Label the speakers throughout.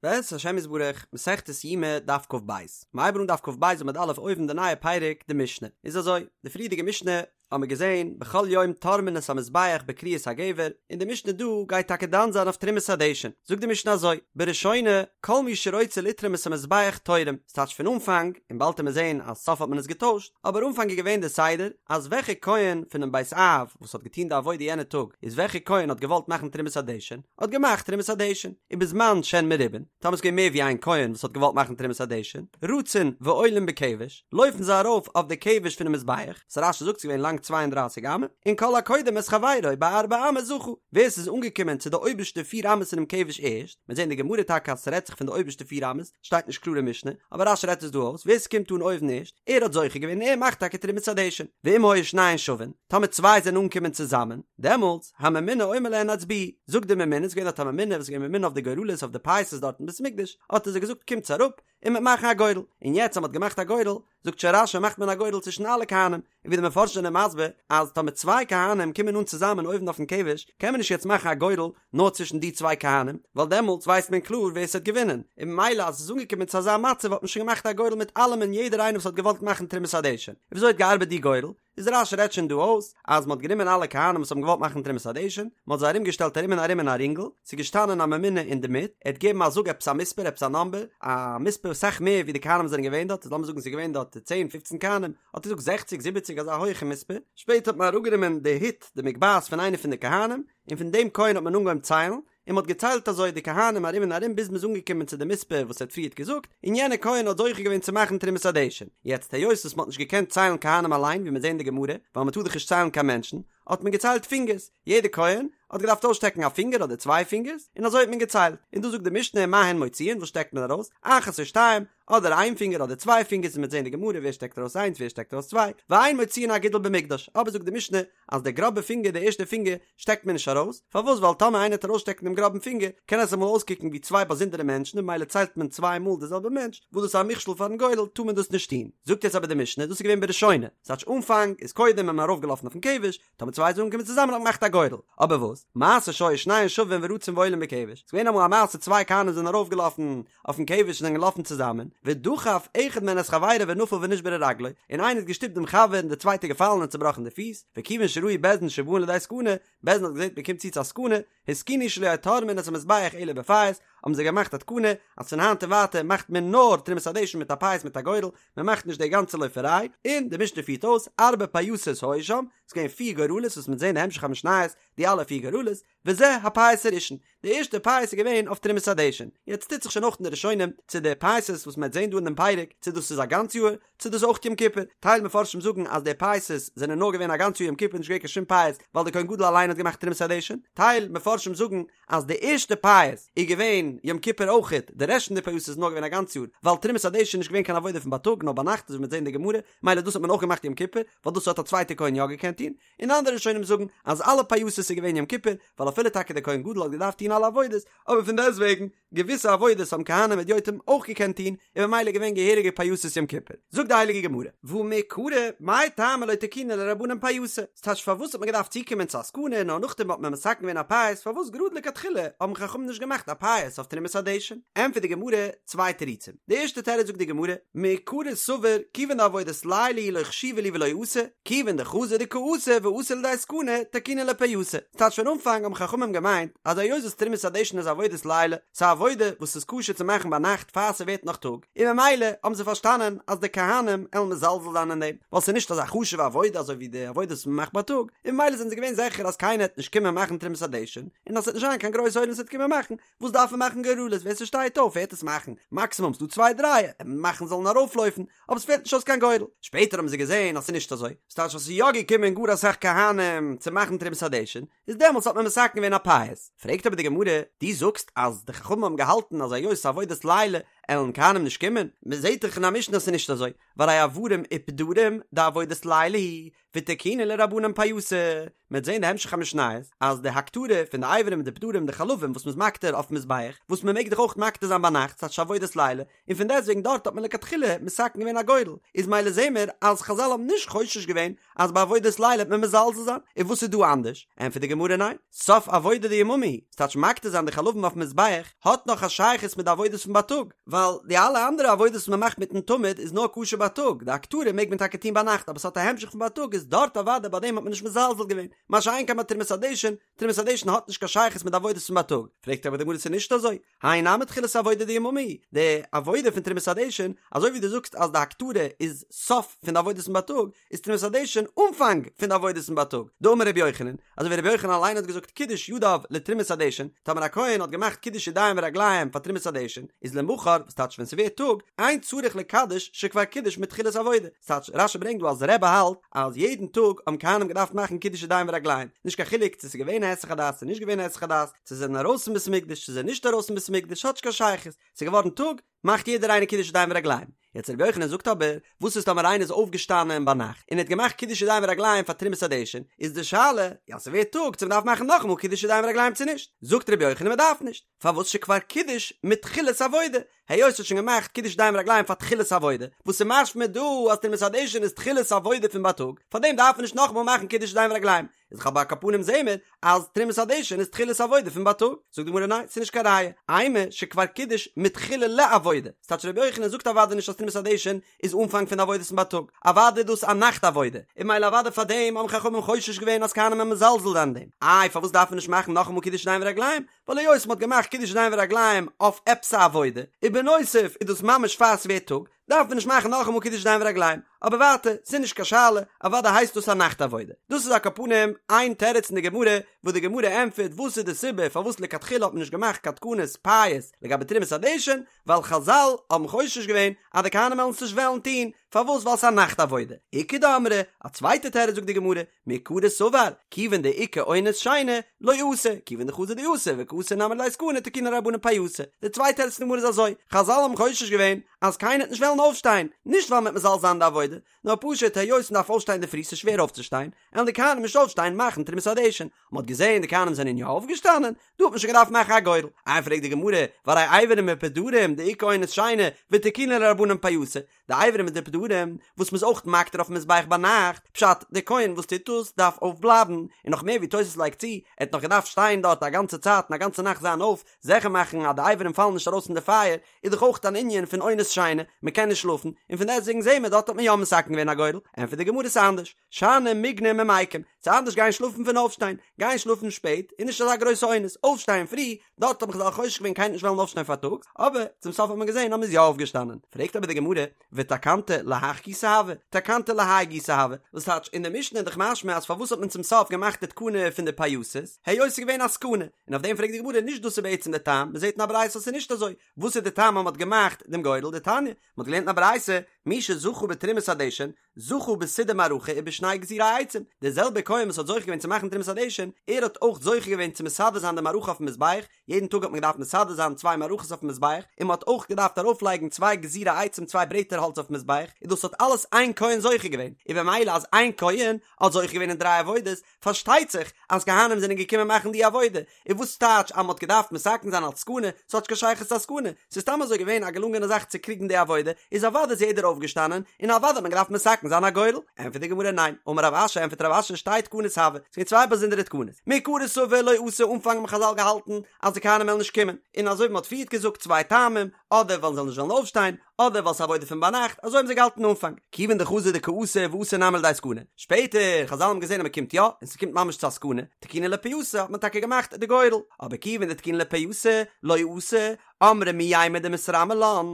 Speaker 1: בעזרת השם יתברך, מסכת יומא, דף כ"ב. מ'הייבן אן דף כ"ב עמוד א' אויבן די נייע פרק, די משנה. איז אזוי, די פריערדיגע משנה האבן מיר געזען, בכל יום תורמין את המזבח בכריית הגבר, און די משנה דא גייט טאקע דן זיין אויף תרומת הדשן. זאגט די משנה אזוי, בראשונה, כל מי שרוצה לתרום את המזבח תורם, ס'טייטש פון אנפאנג, און באלד עמיר זען אז סוף האט מען עס געטוישט, אבער אנפאנג איז געווען די סדר, אז וועלכע כהן פונעם בית אב וואס האט געטון די עבודה יענע טאג, איז וועלכע כהן האט געוואלט מאכן תרומת הדשן, האט געמאכט תרומת הדשן, ובזמן שהן מרובין, טאמער ס'איז געווען מער ווי איין כהן וואס האט געוואלט מאכן תרומת הדשן, רצין ועולין בכבש, לויפן זיי ארויף אויף די כבש פונעם מזבח, וואס רש"י זאגט ס'איז געווען לאנג צוויי און דרייסיג אמה, און כל הקודם את חברו בארבע אמות זכה, ווער ס'איז אנגעקומען צו די אויבערשטע פיר אמות אינעם כבש ערשט, מ'וועט זען אין די גמרא טאקע אז ס'רעדט זיך פון די אויבערשטע פיר אמות, שטייט נישט קלאר אין משנה, אבער רש"י רעדט עס דא אויס, ווער ס'קומט אן אויבן ערשט, ער האט זוכה געווען און ער מאכט טאקע תרומת הדשן, ואם היו שניהן שווין, טאמער צוויי זענען אנגעקומען צוזאמען, דעמאלטס, הממונה אומר להן הצביעו, זאגט די ממונה, ס'איז געווען דארט א ממונה וואס איז געווען ממונה אויף די גורלות אויף די פייסות דארט אין בית המקדש, האט ער זיי געזאגט קומטס אראפ, און מ'וועט מאכן א גורל, און יעצט אז מ'האט געמאכט א גורל, זאגט שוין רש"י מאכט מען א גורל צווישן אלע כהנים, און ווי די מפרשים זענען מסביר אז טאמער צוויי כהנים קומען אן צוזאמען אויבן אויפן כבש, קען מען נישט יעצט מאכן א גורל נאר צווישן די צוויי כהנים, ווייל דעמאלטס ווייסט מען קלאר ווער ס'האט געווינען, און ממילא אז עס איז אנגעקומען צו אזא מצב האט מען שוין געמאכט א גורל מיט אלעמען יעדער איינער וואס האט געוואלט מאכן תרומת הדשן. און וויאזוי האט געארבעט די גורל? איז רש"י רעדט שוין דא אויס אז מ'האט גענומען אלע כהנים וואס האבן געוואלט מאכן תרומת הדשן, מ'האט זיי ארום געשטעלט ארום און ארום אין א רינגל, ס'איז געשטאנען א ממונה אינדערמיט, ער האט געגעבן א זאג עפעס א מספר, עפעס א נאמבער, א מספר אסאך מער ווי די כהנים זענען געווען דארט, לאמיר זאגן ס'איז געווען דארט צען פופצן כהנים, האט ער געזאגט זעכציג זיבעציג אזא הויכע מספר, שפעטער האט מען אראפגענומען די הוט, די מגבעת פון איינער פון די כהנים, און פון דעם כהן האט מען אנגעהויבן ציילן, און מ'האט געציילט אזוי די כהנים ארום און ארום ביז מ'איז אנגעקומען צו די מספר וואס ער האט פריערט געזאגט, און יענער כהן האט זוכה געווען צו מאכן תרומת הדשן. יעצט היות וואס מ'האט נישט געקענט ציילן כהנים אליין ווי מיר זעהן אין די גמרא, ווייל מ'טאר דאך נישט ציילן קיין מענטשן, האט מען געציילט פינגערס, יעדער כהן האט געדארפט אויסשטעקן א פינגער אדער צוויי פינגערס, און אזוי האט מען געציילט. און דא זאגט די משנה מה הן מוציאין וואס שטעקט מען ארויס, אחת או שתיים, אדער איין פינגער אדער צוויי פינגערס און מ'וועט זעהן אין די גמרא ווער שטעקט ארויס איינס ווער שטעקט ארויס צוויי, ואין מוציאין אגודל במקדש, אבער זאגט די משנה אז דער גראבער פינגער די ערשטע פינגער שטעקט מען נישט ארויס, פארוואס ווייל טאמער איינער וועט ארויסשטעקן דעם גראבן פינגער קען עס אמאל אויסקוקן ווי צוויי באזונדערע מענטשן און ממילא ציילט מען צוויי מאל די זעלבע מענטש, וואס דאס איז א מכשול פארן גורל טאר מען דאס נישט טון. זאגט יעצט אבער די משנה דאס איז געווען בראשונה, ס'טייטש אנפאנג איז קודם איז מען ארויפגעלאפן אויפן כבש, טאמער צוויי זענען אנגעקומען צוזאמען האט מען געמאכט א גורל, אבער וואס? מעשה שהיו שניהן שווין ורצין ועולין בכבש, ס'איז געווען אמאל א מעשה צוויי כהנים זענען ארויפגעלאפן אויפן כבש און זענען געלאפן צוזאמען, ודחף אחד מהן את חברו ונפל ונשברה רגלו, און איינער האט געשטופט דעם חבר און דער צווייטער געפאלן און צובראכן די פיס, וכיוון שראו בית דין שבאין לידי סכנה, בית דין האט געזען מען קומט צו צו א סכנה, התקינו שלא יהו תורמין את המזבח אלא בפייס, האבן זיי געמאכט א תקנה אז פון היינט און ווייטער מאכט מען נאר תרומת הדשן מיט א פייס מיט א גורל, מען מאכט נישט די גאנצע לויפעריי, און די משנה פירט אויס, ארבע פייסות היו שם, ס'איז געווען פיר גורלות וואס מ'וועט זען אין המשך המשניות די אלע פיר גורלות, וזה הפייס הראשון, די ערשטע פייס איז געווען אויף תרומת הדשן, יעצט טוט זיך שוין אויך אין די ראשונים צו די פייסות וואס מ'וועט זען דא אין דעם פרק צו דאס איז א גאנץ יאר, צו דאס אויך יום כיפור, טייל מפרשים זאגן אז די פייסות זענען נאר געווען א גאנץ יאר יום כיפור נישט געווען קיין שום פייס ווייל די כהן גדול אליין האט געמאכט תרומת הדשן, טייל מפרשים זאגן אז די ערשטע פייס איז געווען יום כיפור אויכעט, די רעשט פון די פייסות איז נאר געווען א גאנץ יאר, ווייל תרומת הדשן איז נישט געווען קיין עבודה פון בייטאג נאר ביינאכט אזוי ווי מ'וועט זען אין די גמרא, מילא דאס האט מען אויך געמאכט יום כיפור, ווייל דאס האט א צווייטע כהן יא געקענט טון, און אנדערע ראשונים זאגן אז אלע פייסות איז געווען יום כיפור, ווייל אפילו טאקע דער כהן גדול האט געדארפט טון אלע עבודות, אבער פון דעסטוועגן, געוויסע עבודות האבן כהנים הדיוטים אויך געקענט טון, און ממילא געווען געהעריגע פייסות יום כיפור. זאגט די הייליגע גמרא, והא מעיקרא, מאי טעמא לא תקינו ליה רבנן פייסא? ס'טייטש פארוואס האט מען געדארפט צוקומען צו א סכנה נאר נאכדעם האט מען מתקן געווען א פייס, פארוואס גראד לכתחילה האבן חכמים נישט געמאכט א פייס אויף תרומת הדשן? ענטפערט די גמרא, צוויי תירוצים. די ערשטע תירוץ זאגט די גמרא, מעיקרא סבור כיוון דעבודת לילה היא לא חשיבא להו ולא אתו, כיוון דחזו דקא אתו ואתו לידי סכנה, תקינו להו פייסא. ס'טייטש פון אנפאנג האבן חכמים געמיינט אז היות וואס תרומת הדשן איז עבודת לילה, ס'איז א עבודה וואס איז כשר צו מאכן ביינאכט פאר ס'ווערט נאך טאג, און ממילא האבן זיי פארשטאנען אז די כהנים עלן מזלזל זיין אין דעם, ווייל ס'איז נישט אזא חשוב'ע עבודה אזוי ווי די עבודות וואס מ'מאכט בייטאג, און ממילא זענען זיי געווען זיכער אז קיינער העט נישט קומען מאכן תרומת הדשן, און אז ס'וועט נישט זיין קיין גרויס עולם וואס וועט קומען מאכן, וואס דארף מען מאכן גורלות ווער ס'שטייט אויף וועט עס מאכן, מאקסימום ס'דא צוויי דריי מאכן זאלן ארויפלויפן, אבער ס'פעלט נישט אויס קיין גורל. שפעטער האבן זיי געזען אז ס'איז נישט אזוי, ס'טייטש אז ס'איז יא געקומען גאר אסאך כהנים צו מאכן תרומת הדשן, איז דעמאלטס האט מען מתקן געווען א פייס. פרעגט אבער די גמרא, דו זאגסט אז די חכמים האבן געהאלטן אז היות ס'איז עבודת לילה. עלן כהנים נישט קומען? מען זעט דאך אין א משנה אז ס'איז נישט אזוי, והרי איברים ופדרים דעבודת לילה היא, ותקינו להו רבנן פייסא, מען וועט זען די המשך המשניות אז די הקטרה פון די אברים און די פדרים די חלבים וואס מ'איז מקטיר אויפן מזבח, וואס מען מעג דאך אויך מקטיר זיין ביינאכט ס'טייטש עבודת לילה, און פון דעסטוועגן דארט האט מען לכתחילה מתקן געווען א גורל, איז מילא זעהן מיר אז חזל האבן נישט חושש געווען אז ביי עבודת לילה וועט מען מזלזל זיין, און וואס איז דא אנדערש? ענטפערט די גמרא ניין, סוף עבודה דיממא היא, ס'טייטש מקטיר זיין די חלבים אויפן מזבח האט נאך א שייכות מיט די עבודות פון בייטאג, ווייל די אלע אנדערע עבודות וואס מען מאכט מיטן תמיד איז נאר כשר בייטאג, די הקטרה מעג מען טאקע טון ביינאכט אבער ס'האט א המשך פון בייטאג איז דארט אוודאי ביי דעם האט מען נישט מזלזל געווען, מה שאין כן ביי תרומת הדשן, תרומת הדשן האט נישט קיין שייכות מיט די עבודות פון בייטאג, פרעגט אבער די גמרא ס'איז נישט אזוי, האי נמי תחילת עבודה דיממא היא, די עבודה פון תרומת הדשן, אזוי ווי דו זאגסט אז די הקטרה איז סוף פון די עבודות פון בייטאג, איז תרומת הדשן אנפאנג פון די עבודות פון בייטאג. דאמר רבי יוחנן, אזוי ווי רבי יוחנן אליין האט געזאגט קידש ידיו לתרומת הדשן, טאמער א כהן האט געמאכט קידוש ידיים ורגליים פאר תרומת הדשן, איז למחר, וואס טייטש ווען ס'ווערט טאג, אין צריך לקדש שכבר קידש מתחילת עבודה. ס'טייטש, רשי ברענגט דא אז רבי האלט אז יעדן טאג האבן כהנים געדארפט מאכן קידוש ידיים ורגליים, נישט קיין חילוק צו ס'איז געווען א היסח הדעת צו נישט געווען א היסח הדעת, צו זיי זענען ארויס פון בית המקדש צו זיי זענען נישט ארויס פון בית המקדש האט נישט קיין שייכות, ס'איז געווארן טאג, מאכט יעדער איינער קידוש ידיים ורגליים. יעצט רבי יוחנן זאגט אבער, וואס איז טאמער איינער איז אויפגעשטאנען ביינאכט און ער האט געמאכט קידוש ידיים ורגליים פאר תרומת הדשן, איז די שאלה, יא ס'ווערט טאג צו מ'דארף מאכן נאכאמאל קידוש ידיים ורגליים צו נישט? זאגט רבי יוחנן מ'דארף נישט, פארוואס שכבר קידש מתחילת עבודה, היות ער האט שוין געמאכט קידוש ידיים ורגליים פאר תחילת עבודה, וואס איז משמע דא אז תרומת הדשן איז תחילת עבודה פון בייטאג, פארדעם דארף מען נישט נאכאמאל מאכן קידוש ידיים ורגליים, איז דאך אבער על כל פנים זעהן מיר אז תרומת הדשן איז תחילת עבודה פון בייטאג, זאגט די גמרא ניין ס'איז נישט קיין ראיה, אימא שכבר קידש מתחילה לעבודה, ס'טייטש רבי יוחנן זאגט אוודאי נישט אז תרומת הדשן איז אנפאנג פון די עבודות פון בייטאג, אוודאי איז דאס א נאכט עבודה, און מילא אוודאי פאר דעם האבן חכמים חושש געווען אז כהנים וועלן מזלזל זיין אין דעם, איי פארוואס דארף מען נישט מאכן נאכאמאל קידוש ידיים ורגליים, ווייל היות מ'האט געמאכט קידוש ידיים ורגליים אויף עפעס א עבודה, ובנוסף איז דאס ממש פאר ס'ווערט טאג, דארף מען נישט מאכן נאכאמאל קידוש ידיים ורגליים, אבער ווייטער, ס'איז נישט קיין שאלה, אוודאי הייסט דאס א נאכט עבודה. דאס איז על כל פנים איין תירוץ אין די גמרא, וואס די גמרא ענטפערט וואס איז די סיבה פארוואס לכתחילה האט מען נישט געמאכט קיין תקנות פייס לגבי תרומת הדשן, ווייל חזל האבן חושש געווען אז די כהנים וועלן עס נישט וועלן טון, פארוואס ווייל ס'איז א נאכט עבודה. איכא דאמרי, א צווייטע תירוץ זאגט די גמרא, מעיקרא סבר, כיוון דאיכא אונס שינה, לא אתו, כיוון דחזו דאתו וקאתו נמי לידי סכנה תקינו רבנן פייסא. די צווייטע תירוץ פון די גמרא איז אזוי, חזל האבן חושש געווען אז קיינער וועט נישט וועלן אויפשטיין, נישט ווייל מ'וועט מזלזל זיין אין די עבודה, נאר פשוט היות מ'דארף אויפשטיין אינדערפרי ס'איז שווער אויפצושטיין, עלן די כהנים נישט אויפשטיין מאכן תרומת הדשן. מ'האט געזען די כהנים זענען יא אויפגעשטאנען, דא האט מען שוין געדארפט מאכן א גורל. איי פרעגט די גמרא, והרי איברים ופדרים דאיכא אונס שינה, ותקינו להו רבנן פייסא, די אברים מיט די פדרים וואס מ'איז אויך מקטיר אויפן מזבח ביינאכט, פשט, דער כהן וואס טוט דאס דארף אויפבלייבן, און נאך מער ווי תוס' לייגט צו, ער האט נאך געדארפט שטיין דארט א גאנצע צייט און א גאנצע נאכט זיין אויף, זיכער מאכן אז די אברים פאלן נישט ארויס אין די פייער, איז דאך אויך אן ענין פון אונס שינה, מ'קען נישט שלאפן, און פון דעסטוועגן זעהן מיר דארט האט מען יא מתקן געווען א גורל, ענטפערט די גמרא ס'איז אנדערש, שאני מיגנא ממיקם, ס'איז אנדערש גיין שלאפן פון אויפשטיין, גיין שלאפן שפעט איז נישט אזא גרויסע אונס, אויפשטיין פרי דארט האבן חזל חושש געווען קיינער נישט וועלן אויפשטיין פארטאגס, אבער צום סוף האט מען געזען אז מ'איז יא אויפגעשטאנען. פרעגט אבער די גמרא, ותקנתא להך גיסא הוה, תקנתא להאי גיסא הוה, וואס טייטש, אין די משנה איז דאך משמע אז פארוואס האט מען צום סוף געמאכט די תקנה פון די פייסות, היות ס'איז געווען א סכנה, און אויף דעם פרעגט די גמרא, נישט דאס איז בעצם די טעם, מ'זעט אין א ברייתא אז ס'איז נישט אזוי, וואס איז די טעם אז מ'האט געמאכט דעם גורל, דתניא, מ'האט געלערנט אין א ברייתא, מי שזכה בתרומת הדשן, זכה בסידור מערכה ובשני גזירי עצים, דער זעלבער כהן וואס האט זוכה געווען צו מאכן תרומת הדשן, ער האט אויך זוכה געווען צו מסדר זיין די מערכה אויפן מזבח, יעדן טאג האט מען געדארפט מסדר זיין צוויי מערכות אויפן מזבח, און מען האט אויך געדארפט ארויפלייגן צוויי גזירי עצים צוויי ברעטער האלץ אויפן מזבח, און דאס האט אלעס איין כהן זוכה געווען, און במילא אז איין כהן האט זוכה געווען אין דריי עבודות, פארשטייט זיך אז כהנים זענען געקומען מאכן די עבודה, און וואס טייטש אז מ'האט געדארפט מתקן זיין אלס סכנה, ס'האט נישט קיין שייכות צו א סכנה, ס'איז סתם אזוי געווען א געלונגענע זאך צו קריגן די עבודה, איז אוודאי איז יעדער אויפגעשטאנען, און אוודאי האט מען געדארפט מתקן זיין א גורל. ענטפערט די גמרא ניין, אמר רב אשי ענטפערט רב אשי שתי תקנות הוו, ס'איז געווען צוויי באזונדערע תקנות, מעיקרא סבור לא אתו אנפאנג האבן חזל געהאלטן אז די כהנים וועלן נישט קומען, און אזוי ווי מ'האט פריערט געזאגט צוויי טעמים, אדער ווייל זיי זאלן נישט וועלן אויפשטיין, אדער ווייל ס'איז עבודה פון ביינאכט, אזוי האבן זיי געהאלטן אנפאנג, כיוון דחזו דקאתו ואתו נמי לידי סכנה, שפעטער, חזל האבן געזען אז מ'קומט יא, און ס'קומט ממש צו א סכנה, תקינו להו פייסא האט מען טאקע געמאכט די גורל, אבער כיוון דתקינו להו פייסא, לא אתו, אמרי מי יימר דמתרמי לן,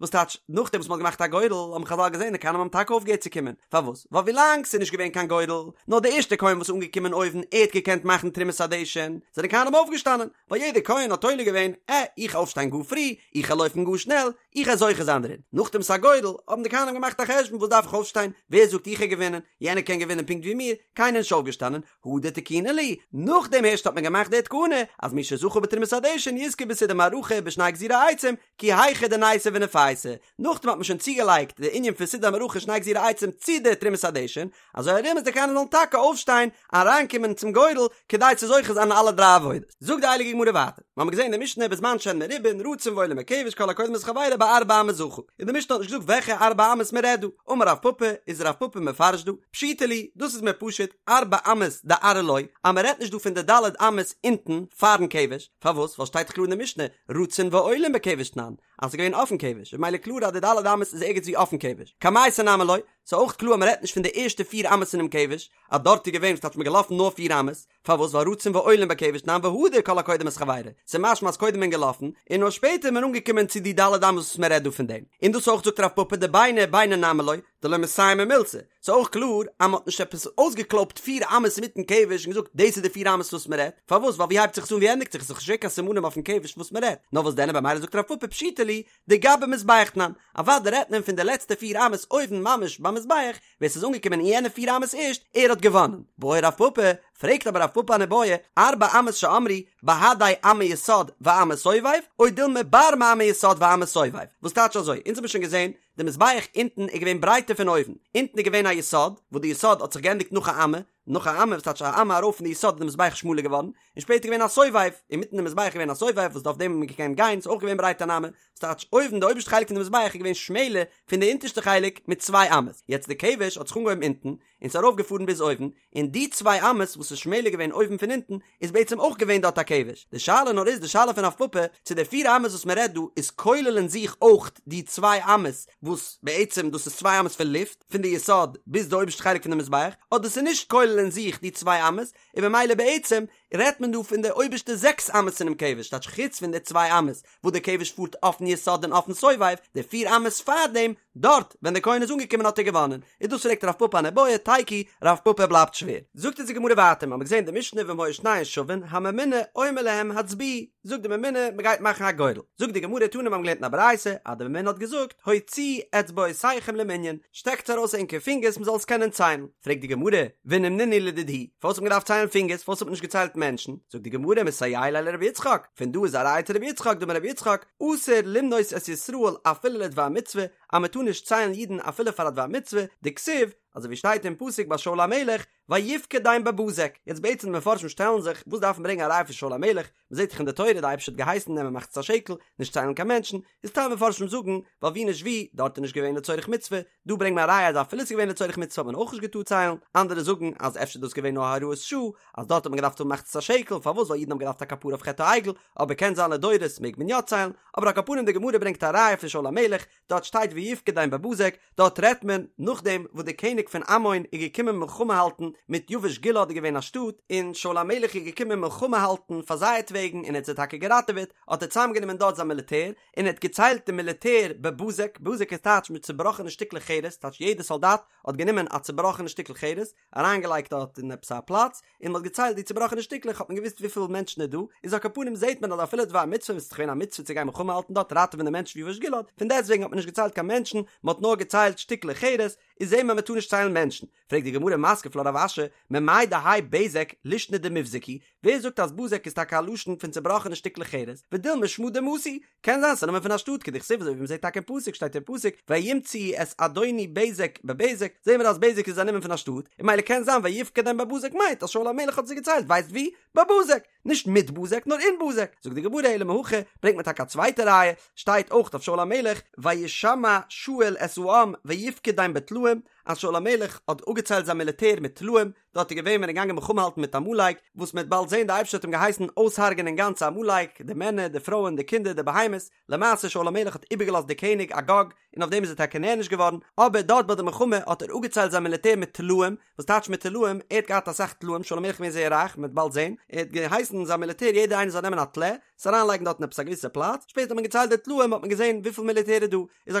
Speaker 1: וואס טייטש, נאכדעם וואס מ'האט געמאכט א גורל, האבן חזל געזען די כהנים האבן טאקע אויפגעהערט צו קומען, פארוואס? ווייל ווילאנג ס'איז נישט געווען קיין גורל, נאר די ערשטע כהן וואס איז אנגעקומען אויבן ער האט געקענט מאכן תרומת הדשן, זענען כהנים אויפגעשטאנען, ווייל יעדער כהן האט תולה געווען, עה, איך אויפשטיין גאר פרי, איך וועל לויפן גאר שנעל, איך וועל זוכה זיין דערצו. דערין, נאך תרומת הגורל האבן די כהנים געמאכט א חשבון וואס דארף איך אויפשטיין, ווער זאגט איך גיי געווינען, יענער קען געווינען פונקט ווי מיר, קיינער נישט אויפגעשטאנען, הדר תקינו להו, נאכדעם הערשט האט מען געמאכט די תקנה אז מי שזכה בתרומת הדשן יזכה בסידור מערכה בשני גזירי עצים, כי היכי דניתו וניפייסו, נאכדעם האט מען שוין צוגעלייגט די ענין פון סידור מערכה שני גזירי עצים צו די תרומת הדשן, אזוי ארום אז די כהנים זאלן טאקע אויפשטיין אריינקומען צום גורל כדי צו זוכה זיין אין אלע דריי עבודות. זאגט די הייליגע גמרא ווייטער, מיר האבן געזען אין די משנה בזמן שהן מרובין רצין ועולין בכבש כל הקודם את חברו בארבע אמות זכה, און די משנה האט נישט געזאגט וועלכע ארבע אמות מען רעדט דא, אמר רב פפא, איז רב פפא מפרש דא, פשיטא לי, דאס איז מיר פשוט, ארבע אמות דארעא לא, אז מען רעדט נישט דא פון די ד' אמות אונטן פארן כבש, פארוואס? ווייל שטייט דאך קלאר אין די משנה, רצין ועולין בכבש תנן, אז ס'איז געווען אויפן כבש, איז ממילא קלאר אז די ד' אמות איז ערגעץ ווי אויפן כבש. קמייתא נמי לא, ס'איז אויך קלאר אז מ'רעדט נישט פון די ערשטע פיר אמות אינעם כבש, אז דארט איז געווען וואס טייטש מ'איז געלאפן נאר פיר אמות, פארוואס? ווייל רצין ועולין בכבש תנן והדר כל הקודם את חברו, ס'איז משמע אז קודם איז מען געלאפן, און נאר שפעטער איז מען אנגעקומען צו די ד' אמות וואס מ'רעדט דא פון דעם. און דאס אויך זאגט רב פפא דביני ביני נמי לא, דלא מסיימי מילתא, ס'איז אויך קלאר אז מ'האט נישט עפעס אויסגעקלויבט פיר אמות אינמיטן כבש און געזאגט דאס איז די פיר אמות וואס מ'רעדט, פארוואס? ווייל ווי הייבט זיך עס אן ווי ענדיגט זיך עס? ס'איז נישט געווען קיין סימנים אויפן כבש וואס מ'רעדט, נאר וואס דען במילא זאגט רב פפא פשיטא לי דגבי מזבח תנן, אוודאי רעדט מען פון די לעצטע פיר אמות אויבן ממש ביים מזבח, ווער ס'איז אנגעקומען אין יענע פיר אמות ערשט, ער האט געוואנען. בעי רב פפא, פרעגט אבער רב פפא אן איבעיא, ארבע אמות שאמרו, בהדי אמה יסוד ואמה סובב, או דילמא בר מאמה יסוד ואמה סובב, וואס טייטש אזוי? אונז האבן שוין געזען די מזבח אונטן איז געווען ברייטער פון אויבן, אונטן איז געווען א יסוד, וואס די יסוד האט זיך געענדיגט נאך א אמה, נאך א אמה, וואס טייטש א אמה ארויף פון די יסוד איז די מזבח שמאלער געווארן, און שפעטער געווען א סובב, אינמיטן די מזבח איז געווען א סובב וואס אויף דעם האט מען געקענט גיין, ס'איז אויך געווען ברייט אן אמה, וואס טייטש אויבן די אויבערשטע חלק פון די מזבח איז געווען שמעלער פון די אונטערשטע חלק מיט צוויי אמות, יעצט די כבש האט זיך אנגעהויבן אונטן, און ס'איז ארויף געפארן ביז אויבן, און די צוויי אמות וואס איז שמעלער געווען אויבן פון אונטן, איז בעצם אויך געווען דארט א כבש, די שאלה נאר איז די שאלה פון רב פפא, צו די פיר אמות וואס מען רעדט דא איז כולל אין זיך אויך די צוויי אמות, וואס בעצם דאס איז צוויי אמות פון לופט, פון די יסוד ביז די אויבערשטע חלק פון די מזבח, אדער ס'איז נישט כולל אין זיך די צוויי אמות, און במילא בעצם רעדט מען דא פון די אויבערשטע זעקס אמות אינעם כבש, טייטש חוץ פון די צוויי אמות וואס די כבש פארט אויפן יסוד און אויפן סובב, די פיר אמות פארדעם, דארט ווען דער כהן איז אנגעקומען האט ער געוואנען, איז דאס פרעגט רב פפא אן איבעיא, תיקו, רב פפא בלייבט שווער. זאגט אונז די גמרא ווייטער, מ'האמיר געזען די משנה ואם היו שניהן שווין, הממונה אומר להם הצביעו, זאגט די ממונה מ'גייט מאכן א גורל, זאגט די גמרא תנא מ'האמיר געלערנט אין א ברייתא אז די ממונה האט געזאגט הוציאו אצבעותיכם למנין, שטעקטס ארויס ענקער פינגערס מ'זאל עס קענען ציילן, פרעגט די גמרא, ונימנינהו לדידהו, פארוואס האט מען געדארפט ציילן פינגערס, פארוואס האט מען נישט געציילט מענטשן, זאגט די גמרא מסייע ליה לרבי יצחק, פון דא איז א ראיה צו רבי יצחק, דאמר רבי יצחק, אסור למנות את ישראל אפילו לדבר מצוה, אז מען טאר נישט ציילן אידן אפילו פאר א דבר מצוה, דכתיב, אזוי ווי שטייט אין פסוק ביי שאול המלך, ויפקדם בבזק, יעצט בעצם די מפרשים שטעלן זיך, וואס דארף מען ברענגען א ראיה פון שאול המלך, מען זעט דאך אין די תורה די אייבערשטער האט געהייסן נעמען מחצית השקל, נישט ציילן קיין מענטשן, איז טייל מפרשים זאגן, ווייל ווי נישט ווי, דארט איז נישט געווען לצורך מצוה, דא ברענגט מען א ראיה אז אפילו ס'איז געווען לצורך מצוה האט מען אויך נישט געטארט ציילן, אנדערע זאגן אז אפשר איז דאס געווען נאר הוראת שעה, אז דארט האט מען געדארפט האבן מחצית השקל, פארוואס ווייל אידן האבן געדארפט א כפרה אויף חטא העגל, אבער קען זיין לדורות מעג מען יא ציילן, אבער על כל פנים די גמרא ברענגט א ראיה פון שאול המלך, דארט שטייט ויפקדם בבזק, דארט רעדט מען נאכדעם וואס דער קעניג פון עמון איז געקומען מלחמה האלטן מיט יבש גלעד איז געווען א שטאט, און שאול המלך איז געקומען מלחמה האלטן פאר זייערטוועגן און ער האט זיי טאקע געראטעוועט, האט ער צוזאמגענומען דארט זיין מיליטער, און ער האט געציילט די מיליטער בבזק, בזק איז טייטש מיט צובראכענע שטיקלעך חרס, טייטש יעדער סאלדאט האט גענומען א צובראכענע שטיקל חרס, אריינגעלייגט דארט אין עפעס א פלאץ, און מען האט געציילט די צובראכענע שטיקלעך האט מען געוואוסט וויפיל מענטשן איז דא, איז על כל פנים זעט מען אז אפילו דבר מצוה וואס איז דאך געווען א מצוה צו גיין מלחמה האלטן דארט ראטעווען די מענטשן פון יבש גלעד, פון דעסטוועגן האט מען נישט געציילט קיין מענטשן, מען האט נאר געציילט שטיקלעך חרס, איז זעט מען מען טאר נישט ציילן מענטשן. פרעגט די גמרא מתקיף לה רב אשי, ממאי דהאי בזק לישנא דמיבזק הוא, ווער זאגט אז בזק איז טאקע א לשון פון צובראכענע שטיקלעך חרס, ודילמא שמא דמתא הוא, קען זיין ס'איז א נאמען פון א שטאט כדכתיב אזוי ווי מ'זעט טאקע אין פסוק שטייט אין פסוק וימצאו את אדוני בזק בבזק זעהן מיר אז בזק איז א נאמען פון א שטאט און ממילא קען זיין ויפקדם בבזק מיינט אז שאול המלך האט זיי געציילט ווייסט ווי? בבזק! נישט מיט בזק נאר אין בזק! זאגט די גמרא אלא מהכא ברענגט מען טאקע א צווייטע ראיה שטייט אויך אויף שאול המלך וישמע שאול את העם ויפקדם בטלאים אז שאול המלך האט אפגעציילט זיין מיליטער מיט טלאים דארט איז געווען ווען ער איז געגאנגען מלחמה האלטן מיט עמלק, וואס מ'וועט באלד זען די אייבערשטער האט אים געהייסן אויסהרג'ענען גאנץ עמלק, די מענער, די פרויען, די קינדער, די בהמות, למעשה שאול המלך האט איבערגעלאזט די קעניג אגג, און אויף דעם איז ער טאקע נענש געווארן, אבער דארט ביי די מלחמה האט ער אפגעציילט זיין מיליטער מיט טלאים, וואס טייטש מיט טלאים, ער האט געהאט אסאך טלאים, שאול המלך איז געווען זייער רייך, מ'וועט באלד זען, ער האט געהייסן זיין מיליטער יעדער איינער זאל נעמען א טלה, עס אריינלייגן דארט אין עפעס א געוויסע פלאץ, שפעטער האט מען געציילט די טלאים האט מען געזען וויפיל מיליטער איז דא, איז על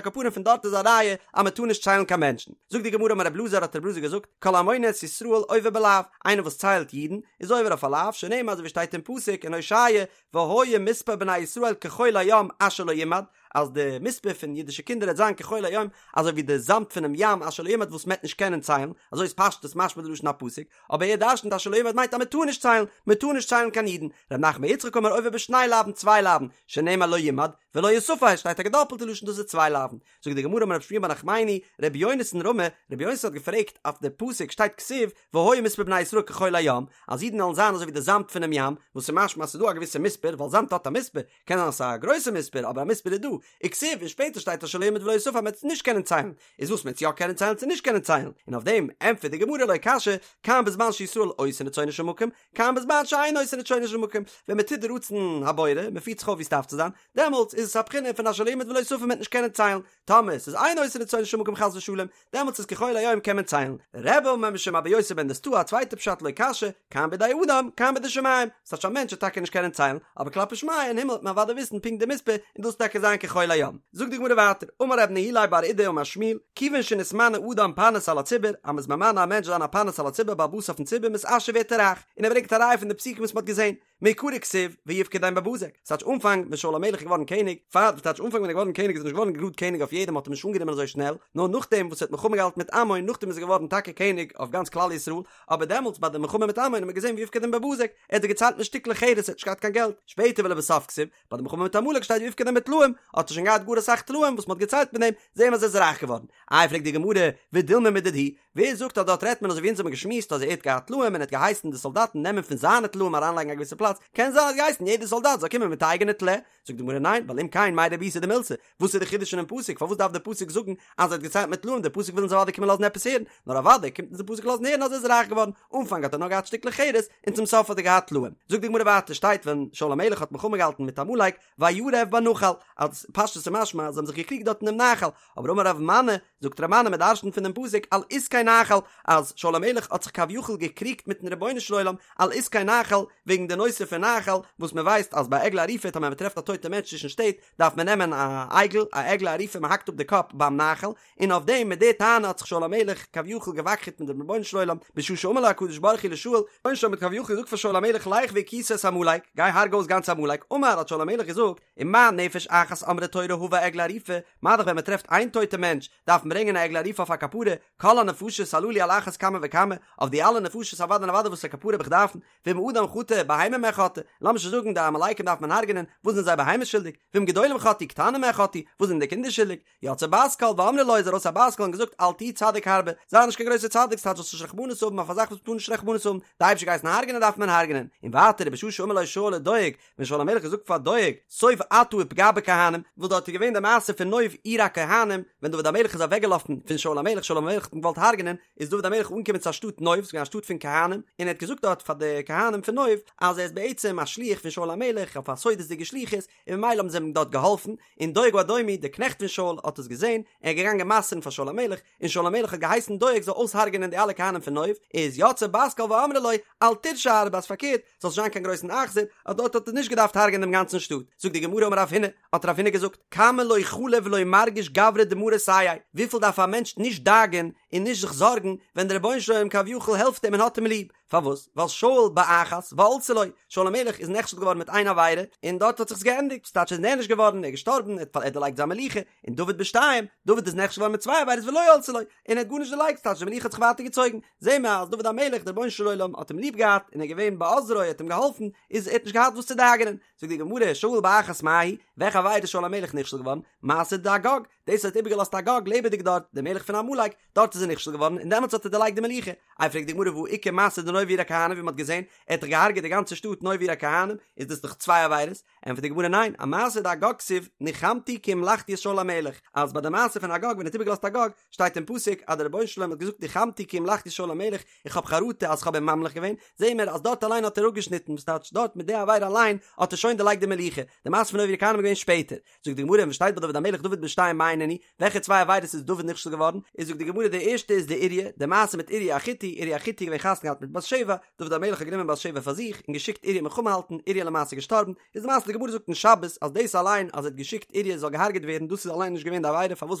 Speaker 1: כל פנים פון דארט איז א ראיה אז מען טאר נישט ציילן קיין מענטשן. זאגט די גמרא אמר רב אלעזר האט רב אלעזר געזאגט כל המונה את ישראל עובר בלאו, איינער וואס ציילט אידן איז עובר אויף א לאו, שנאמר אזוי ווי שטייט אין פסוק אין הושע והיה מספר בני ישראל כחול הים אשר לא ימד, אז די מספר פון אידישע קינדער וועט זיין כחול הים, אזוי ווי די זאמד פונעם ים אשר לא ימד וואס מ'עט נישט קענען ציילן, אזוי איז פשטות משמע די לשון הפסוק, אבער ער דרשנ'ט אשר לא ימד מיינט אז מ'טאר נישט ציילן, מ'טאר נישט ציילן קיין אידן, ר' נחמן בר יצחק אמר עובר בשני לאווין צוויי לאווין, שנאמר לא ימד ולא יספר, שטייט א געדאפלטע לשון דאס איז צוויי לאווין, זאגט די גמרא אמר רב שמואל בר נחמני, רבי יונתן רמי, רבי יונתן האט געפרעגט אויף די פסוק שטייט כתיב והיה מספר בני ישראל כחול הים, אז אידן וועלן זיין אזוי ווי די זאמד פונעם ים, וואס איז משמע אז ס'איז דא א געוויסע מספר, ווייל זאמד האט א מספר, קען זיין אז ס'איז א גרויסע מספר, אבער א מספר איז דא, וכתיב, און שפעטער שטייט אשר לא ימד ולא יספר אז מ'וועט עס נישט קענען ציילן, איז וואס מ'וועט יא קענען ציילן צו נישט קענען ציילן, און אויף דעם ענטפערט די גמרא לא קשיא, כאן בזמן שישראל עושין רצונו של מקום, כאן בזמן שאין עושין רצונו של מקום, ווען מ'טוט די רצון הבורא, מ'פירט זיך אויף ווי ס'דארף צו זיין, דעמאלטס איז עס א בחינה פון אשר לא ימד ולא יספר מ'וועט נישט קענען ציילן, טאמער ס'איז אין עושין רצונו של מקום חס ושלום, דעמאלטס איז כחול הים קען מען ציילן. רבי אמר משום אבא יוסי בן דוסתאי א צווייטע פשט לא קשיא, כאן בידי אדם, כאן בידי שמים, ס'טייטש א מענטש וועט טאקע נישט קענען ציילן, אבער כלפי שמיא אין הימל וועט מען אוודאי וויסן פונקט די מספר און דאס טאקע זיין כחול הים. זאגט די גמרא ווייטער, אמר רב נהילאי בר אידי אמר שמואל, כיוון שנתמנה אדם פרנס על הציבור, אז מ'איז ממנה א מענטש זיין א פרנס על הציבור בעל הבית אויפן ציבור מתעשר ווערט ער רייך, און ער ברענגט א ראיה פון די פסוקים וואס מ'האט געזען, מעיקרא כתיב ויפקדם בבזק, ס'טייטש אנפאנג ווען שאול המלך איז געווארן קעניג, פאר וואס טייטש אנפאנג ווען ער איז געווארן קעניג איז ער נישט געווארן גראד קעניג אויף יעדעם מ'האט אים נישט אנגענומען אזוי שנעל, נאר נאכדעם וואס ער האט מלחמה געהאלטן מיט עמון נאכדעם איז ער געווארן טאקע קעניג אויף גאנץ כלל ישראל, אבער דעמאלטס ביי די מלחמה מיט עמון האט מען געזען ויפקדם בבזק, ער האט זיי געציילט מיט שטיקלעך חרס ער האט נישט געהאט קיין געלט, שפעטער ולבסוף כתיב, ביי די מלחמה מיט עמלק שטייט ויפקדם בטלאים, האט ער שוין געהאט גאר אסאך טלאים וואס מ'האט געציילט מיט דעם, זעהן מיר אז ער איז רייך געווארן. איי פרעגט די גמרא, ודילמא מדידהו, ווער זאגט אז דארט רעדט מען אזוי ווי אונז האבן געשמועסט אז ער האט געהאט טלאים און ער האט געהייסן די סאלדאטן נעמען פון זיינע טלאים אריינלייגן א געוויסע פלאץ, קען זיין ער האט געהייסן יעדע סאלדאט זאל קומען מיט א אייגענע טלה, זאגט די גמרא ניין, ווייל אם כן מאי רבותא דמילתא, וואס איז די חידוש אינעם פסוק, פארוואס דארף די פסוק זאגן אז ער האט געציילט מיט טלאים, די פסוק וויל אונז אוודאי קומען לאזן עפעס הערן, נאר אוודאי קומט אונז די פסוק לאזן הערן אז ער איז רייך געווארן, אנפאנג האט ער נאר געהאט שטיקלעך חרס, און צום סוף האט ער געהאט טלאים. זאגט די גמרא ווייטער שטייט ווען שאול המלך האט מלחמה געהאלטן מיט עמלק, וירב בנחל, אז פשטות איז משמע אז זיי האבן זיך געקריגט דארט אינעם נחל, אבער אמר רב מני, זאגט רב מני מען דרשנ'ט פון דעם פסוק על עסקי נחל, אז שאול המלך האט זיך כביכול געקריגט מיטן רבונו של עולם על עסקי נחל, וועגן די נושא פון נחל, וואס מען ווייסט אז ביי עגלה ערופה טאמער מען טרעפט א טויטע מענטש צווישן שטעט, דארף מען נעמען א עגל, א עגלה ערופה מען האקט אפ די קאפ ביים נחל, און אויף דעם מיט די טענה האט זיך שאול המלך כביכול געוואקחעט מיט דעם רבונו של עולם, בשעה שאמר לו הקדוש ברוך הוא לשאול, רבונו של עולם האט כביכול געזאגט פאר שאול המלך לך והכית את עמלק, גיי הארג אויס גאנץ עמלק, אמר האט שאול המלך געזאגט, ומה נפש אחת אמרה תורה הבא עגלה ערופה, מה דאך ווען מען טרעפט איין טויטע מענטש, דארף מען ברענגען א עגלה ערופה אויף א כפרה, כל הנפשות הללו על אחת כמה וכמה, אויף די אלע נפשות אוודאי און אוודאי וואס א כפרה האב איך דארפן, ואם אדם חטא, בהמה מה חטאה, לאמיר שוין זאגן די עמלקים דארף מען הרג'נען, וואס זענען זיי בהמות שולדיג? ואם גדולים חטאו, קטנים מה חטאו, וואס זענען די קינדער שולדיג? יצאה בת קול ואמרה לו איז ארויס א בת קול און געזאגט אל תהי צדיק הרבה, זיי נישט קיין גרויסער צדיק ס'טייטש זאלסט נישט רחמנות האבן אויף א זאך וואס מ'טאר נישט רחמנות האבן, די אייבערשטער געהייסן הרג'נען דארף מען הרג'נען, און ווייטער ובשעה שאמר לו שאול לדואג, ווען שאול המלך האט געזאגט פאר דואג, סוב אתה ופגע בכהנים, וואס דארט איז געווען די מעשה פון נוב עיר הכהנים, ווען דוד המלך איז אוועקגעלאפן פון שאול המלך, שאול המלך האט אים געוואלט הרג'נען, איז דוד המלך אנגעקומען צו א שטאט נוב, ס'איז געווען א שטאט פון כהנים, און ער האט געזאגט דארט פאר די כהנים פון נוב, אז ער איז בעצם א שליח פון שאול המלך אויף א סודות'דיגע שליחות, און ממילא האבן זיי אים דארט געהאלפן, און דואג האדומי, דער קנעכט פון שאול, האט עס געזען, ער איז געגאנגען מסר'ן פאר שאול המלך, און שאול המלך האט געהייסן דואג זאל אויסהרג'ענען די אלע כהנים פון נוב, איז יצאה בת קול ואמרה לו, אל תרשע הרבה, אז פארקערט, זאלסט נישט זיין קיין גרויסן אכזר, אז דארט האט ער נישט געדארפט הרג'ענען דעם גאנצן שטאט. זאגט די גמרא אמר רב הונא, האט רב הונא געזאגט, כמה לא חלי ולא מרגיש גברא דמריה סייעיה, וויפיל דארף א מענטש נישט דאגה'ן און נישט זיך זארגן, ווען דער רבונו של עולם כביכול העלפט אים און האט אים ליב, פארוואס? ווייל שאול באחת ועלתה לו, שאול המלך איז נכשל געווארן מיט איין עבירה, און דארט האט זיך עס געענדיגט, ס'טייטש ער איז נענש געווארן, ער איז געשטארבן, ער האט דערלייגט זיין מלוכה, און דוד בשתיים, דוד איז נכשל געווארן מיט צוויי עבירות ולא עלתה לו, און ער האט גארנישט דערלייגט, ס'טייטש די מלוכה האט זיך ווייטער געצויגן, זעהן מיר אז דוד המלך, דער רבונו של עולם האט אים ליב געהאט, און ער איז געווען בעוזרו, ער האט אים געהאלפן, איז ער האט נישט געהאט וואס צו דאגה'נען. זאגט די גמרא, שאול באחת מאי היא, וועלכע עבירה איז שאול המלך נכשל געווארן? מעשה דאגג, דאס האט איבערגעלאזט אגג לעבעדיג דארט, דער מלך פון עמלק, דארט איז ער נכשל געווארן און דעמאלטס האט ער דערלייגט די מלוכה. איי פרעגט די גמרא והא איכא מעשה דנוב עיר הכהנים ווי מען האט געזען, ער האט דאך געהארגעט די גאנצע שטאט נוב עיר הכהנים, איז דאס דאך צוויי עבירות? ענטפערט די גמרא ניין, אמעשה דאגג כתיב ניחמתי כי המלכתי את שאול המלך, אז ביי די מעשה פון אגג ווען ער האט איבערגעלאזט אגג, שטייט אין פסוק אז דער רבונו של עולם האט געזאגט ניחמתי כי המלכתי את שאול המלך, איך האב חרטה אז כ'האב אים ממליך געווען, זעהן מיר אז דארט אליין האט ער אפגעשניטן, וואס טייטש דארט מיט די עבירה אליין האט ער שוין דערלייגט די מלוכה, די מעשה פון נוב עיר הכהנים איז געווען שפעטער. זאגט די גמרא ווען שטייט ביי דוד המלך דוד בשתיים מאי נינהו, וועלכע צוויי עבירות איז דוד נכשל געווארן, איז זאגט די גמרא די ערשטע איז דאוריה, די מעשה מיט אוריה החתי, אוריה החתי איז געווען חתונה געהאט מיט בת שבע, דוד המלך האט גענומען בת שבע פאר זיך, און געשיקט אוריה מלחמה האלטן, אוריה למעשה געשטארבן, איז די מעשה די גמרא. גמרא זאגט אין שבת אז דאס אליין אז ער האט געשיקט אוריה זאל געהארגעט ווערן דאס איז אליין נישט געווען די עבירה פארוואס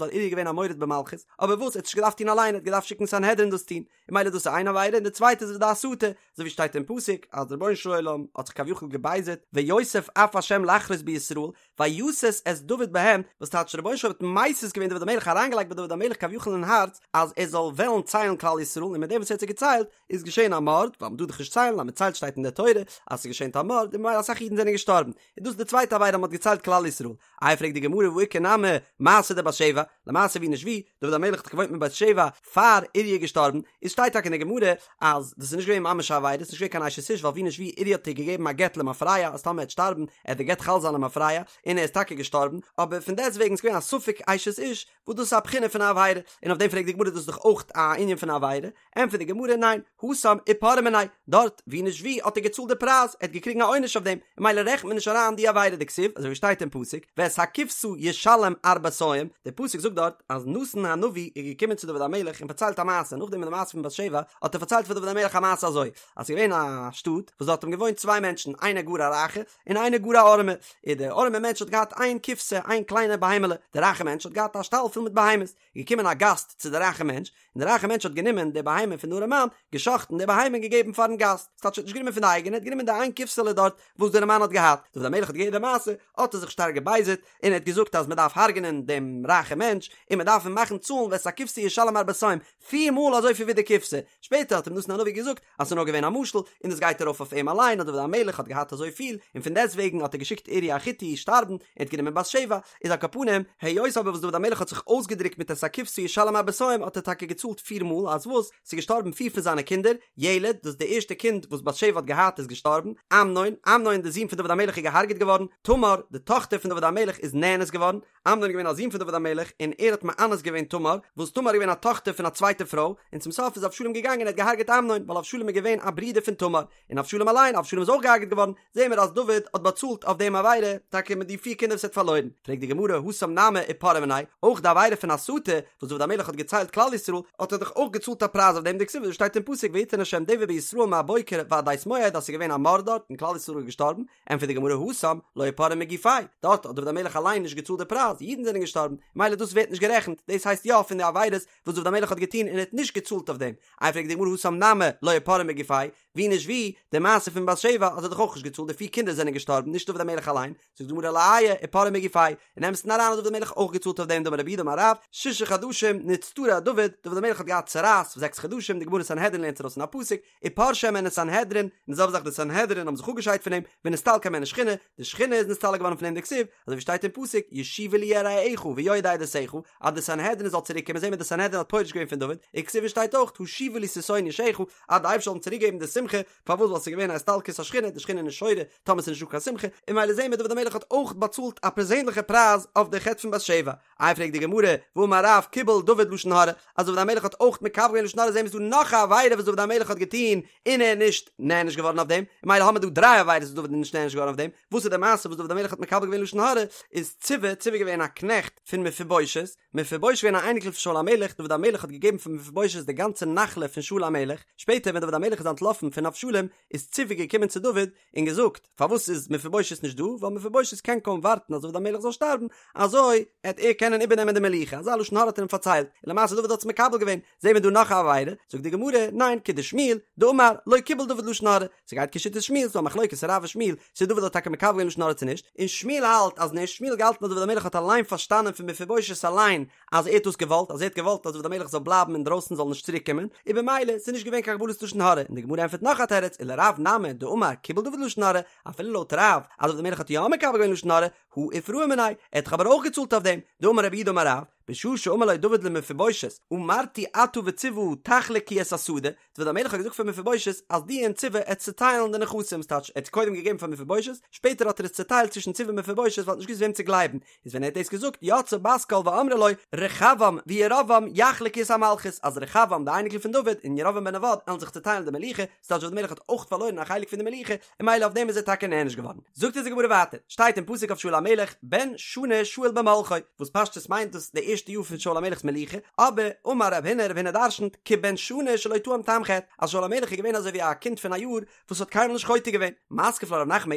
Speaker 1: ווייל אוריה איז געווען א מורד במלכות אבער וואס ער האט נישט געדארפט טון אליין ער האט געדארפט שיקן סנהדרין דאס טון און ממילא דאס איז איין עבירה און די צווייטע איז די הסתה אזוי ווי שטייט אין פסוק אז דער רבונו של עולם האט זיך כביכול געבייזערט ויוסף אף השם לחרות בישראל ויסת את דוד בהם, וואס טייטש דער רבונו של עולם האט מסית געווען דוד המלך אריינגעלייגט ביי דוד המלך כביכול אין הארץ אז ער זאל וועלן ציילן כלל ישראל און מיט דעם וואס ער האט זיי געציילט איז געשען א מארד, ווייל מען טאר דאך נישט ציילן, אז מען ציילט שטייט אין דער תורה אז ס'איז געשען א מארד און ממילא אסאך אידן זענען געשטארבן, איז דאס די צווייטע עבירה אז מען האט געציילט כלל ישראל. איי פרעגט די גמרא והא איכא נמי מעשה דבת שבע, למעשה ווי נישט ווי, דוד המלך האט דאך געוואוינט מיט בת שבע פאר אוריה איז געשטארבן, איז שטייט טאקע אין די גמרא אז דאס איז נישט געווען ממש א עבירה, עס איז נישט געווען קיין אשת איש ווייל ווי נישט ווי אוריה האט איר געגעבן א גט למפרע אז טאמער ער וועט שטארבן עט די גט חל זיין למפרע, און ער איז טאקע געשטארבן, אבער פון דעסט וועגן איז געווען א ספק אשת איש, וואס דאס איז א בחינה פון א עבירה, און אויף דעם פרעגט די גמרא דאס איז דאך אויך א ענין פון א עבירה, ענטפערט די גמרא ניין, התם איפרעו מיניה, דארט ווי נישט ווי האט ער געצאלט די פרייז, ער האט געקריגן א עונש אויף דעם, און ממילא רעכנט מען נישט אריין די עבירה דכתיב, אזוי ווי שטייט אין פסוק, ואת הכבשה ישלם ארבעתים, דער פסוק זאגט דארט אז נתן הנביא איז געקומען צו דוד המלך און פארציילט א מעשה, נאכדעם אין די מעשה פון בת שבע האט ער פארציילט פאר דוד המלך א מעשה אזוי, אז ס'איז געווען א שטאט וואס דארט האבן געוואוינט צוויי מענטשן, איינער גאר א רייכער און איינער גאר א ארעמער, און דער ארעמער מענטש האט געהאט איין כבשה, איין קליינע בהמה'לע, דער רייכער מענטש האט געהאט א שטאל פול מיט בהמות, איז געקומען א גאסט צו די רייכע מענטש, און די רייכע מענטש האט גענומען די בהמה פון די ארעמאן, גע'שחט'ן די בהמה און געגעבן פארן גאסט, ס'טייטש ער האט נישט גענומען פון די אייגענע, ער האט גענומען די איין כבשה'לע דארט וואס די ארעמאן האט געהאט, דוד המלך האט געהערט די מעשה, האט ער זיך שטארק געבייזערט, און ער האט געזאגט אז מען דארף הרג'נען דעם רייכע מענטש, און מען דארף אים מאכן צאלן ואת הכבשה ישלם ארבעתים, פיר מאל אזויפיל ווי די כבשה, שפעטער האט אים נתן הנביא געזאגט אז ס'איז נאר געווען א משל, און דאס גייט ארויף אויף אים אליין אז דוד המלך האט געהאט אזוי פיל, און פון דעסט וועגן האט ער געשיקט אוריה החתי שטארבן, און האט גענומען בת שבע, איז על כל פנים, היות אבער וואס דוד המלך האט זיך אויסגעדרוקט מיט את הכבשה ישלם ארבעתים האט ער טאקע געצאלט פיר מאל, אז וואס? ס'איז געשטארבן פיר פון זיינע קינדער, ילד, דאס די ערשטע קינד וואס בת שבע האט געהאט איז געשטארבן, אמנון, אמנון די זון פון דוד המלך איז געהארגעט געווארן, תמר, די טאכטער פון דוד המלך איז נאנס געווארן, אמנון איז געווען א זון פון דוד המלך, און ער האט מאנס געווען תמר, וואס תמר איז געווען א טאכטער פון א צווייטע פרוי, און צום סוף איז אבשלום געגאנגען און האט געהארגעט אמנון, ווייל אבשלום איז געווען א ברודער פון תמר, און אבשלום אליין, אבשלום איז אויך געהארגעט געווארן, זעהן מיר אז דוד האט באצאלט אויף דעם עבירה, טאקע מיט די פיר קינדער וואס ער האט פארלוירן. פרעגט די גמרא, התם נמי איפרעו מיניה, אויך די עבירה פון הסתה, וואס דוד המלך האט געציילט כלל ישראל, האט ער דאך אויך געצאלט א פרייז אויף דעם, דכתיב ווי שטייט אין פסוק ויתן ה' דבר בישראל מהבוקר ועד עת מועד אז ס'איז געווען א מארד דארט און כלל ישראל איז געשטארבן, ענטפערט די גמרא התם לא איפרעו מגופיה, דארט האט דוד המלך אליין נישט געצאלט די פרייז, אידן זענען געשטארבן, מילא דאס ווערט נישט גערעכנט, דאס הייסט יא פון די עבירות וואס דוד המלך האט געטון און ער האט נישט געצאלט אויף דעם, איי פרעגט די גמרא התם נמי לא איפרעו מגופיה, ווי נישט ווי, די מעשה פון בת שבע האט ער דאך אויך נישט געצאלט, די פיר קינדער זענען געשטארבן, נישט דוד המלך אליין, זאגט די גמרא לא איה איפרעו מגופיה, אין אמת'ן אריין האט דוד המלך אויך געצאלט אויף דעם דאמר רב יהודה אמר רב, שישה חדשים נצטרע דוד, דוד המלך האט געהאט צרעת פאר זעקס חדשים, די גמרא סנהדרין לערנט ארויס פון א פסוק, ופרשה הימנו סנהדרין, און די זעלבע זאך די סנהדרין האבן זיך אפגעשיידט פון אים, ונסתלקה הימנו שכינה, די שכינה איז נסתלק געווארן פון אים דכתיב, אזוי ווי שטייט אין פסוק, ישובו לי יראיך ויודעי עדותיך, אז די סנהדרין זאל צוריק קומען זעהן מיר די סנהדרין האט פורש געווען פון דוד, וכתיב און שטייט אויך, השיבה לי ששון ישעך, אז די אייבערשטער זאל אים צוריק געבן די שמחה, פארוואס ווייל ס'איז געווען א הסתלקות השכינה, די שכינה איז נישט שורה טאמער ס'איז נישטא קיין שמחה, און ממילא זעהן מיר דוד המלך האט אויך באצאלט א פערזענליכע פרייז אויף די חטא פון בת שבע. איי פרעגט די גמרא, והאמר רב קיבל דוד לשון הרע, אז דוד המלך האט אויך מקבל געווען לשון הרע זעהן מיר ס'דא נאך א עבירה וואס דוד המלך האט געטון און ער איז נישט נענש געווארן אויף דעם, און ממילא האמיר דא דריי עבירות וואס דוד איז נישט נענש געווארן אויף דעם, וואס איז די מעשה וואס דוד המלך האט מקבל געווען לשון הרע, איז ציבא, ציבא איז געווען א קנעכט פון מפיבושת, מפיבושת געווען א אייניקל פון שאול המלך, דוד המלך האט געגעבן פאר מפיבושת די גאנצע נחלה פון שאול המלך, שפעטער ווען דוד המלך איז אנטלאפן פון אבשלום, איז ציבא געקומען צו דוד און געזאגט, פארוואס איז מפיבושת נישט דא, ווייל מפיבושת קען קוים ווארטן אז דוד המלך זאל שטארבן, אזוי עט ער קענען איבערנעמען די מלוכה, אזא לשון הרע האט ער אים פארציילט, און למעשה דוד האט עס מקבל געווען, זעהן מיר דא נאך א עבירה, זאגט די גמרא, ניין, כדשמואל, דאמר, לא קיבל דוד לשון הרע, ס'גייט כשיטת שמואל, ס'דא א מחלוקת רב ושמואל, צו דוד האט טאקע מקבל געווען לשון הרע צו נישט, און שמואל האלט אז נישט, שמואל האט געהאלטן אז דוד המלך האט אליין פארשטאנען פון מפיבושת אליין אז ער האט דאס געוואלט, אז ער האט געוואלט אז דוד המלך זאל בלייבן אינדרויסן זאל נישט צוריק קומען, און במילא ס'איז נישט געווען קיין קבלת לשון הרע, און די גמרא ענטפערט נאך א תירוץ, ולרב נמי דאמר קיבל דוד לשון הרע, אפילו לויט רב אז דוד המלך האט יא מקבל געווען לשון הרע, הא איפרעו מיניה, ער האט דאך אבער אויך געצאלט אויף דעם, דאמר רב יהודה אמר רב, בשעה שאמר לו דוד למפיבושת, אמרתי אתה וציבא תחלקו את השדה, דוד המלך האט געזאגט פאר מפיבושת אז דו און ציבא עט צוטיילן די נכסים, ס'טייטש ער האט קודם געגעבן פאר מפיבושת, שפעטער האט ער עס צוטיילט צווישן ציבא און מפיבושת ווייל ער האט נישט געוואוסט וועם צו גלייבן, איז ווען ער האט דאס געזאגט יצאה בת קול ואמרה לו, רחבעם וירבעם יחלקו את המלכות, אז רחבעם די אייניקל פון דוד און ירבעם בן נבט עלן זיך צוטיילן די מלוכה, ס'טייטש דוד המלך האט אויך פארלוירן א חלק פון די מלוכה, און ממילא אויף דעם איז ער טאקע נענש געווארן. זאגט אונז די גמרא ווייטער, שטייט אין פסוק אויף שאול המלך, בן שנה שאול במלכו, וואס פשטות מיינט דאס די ערשטע. ערשטע יאר פון שאול המלך'ס מלוכה, אבער אמר רב הונא, רב הונא דרשנ'ט, כבן שנה שלא טעם טעם חטא, אז שאול המלך איז געווען אזוי ווי א קינד פון א יאר וואס האט קיינמאל נישט חוטא געווען. מתקיף לה רב נחמן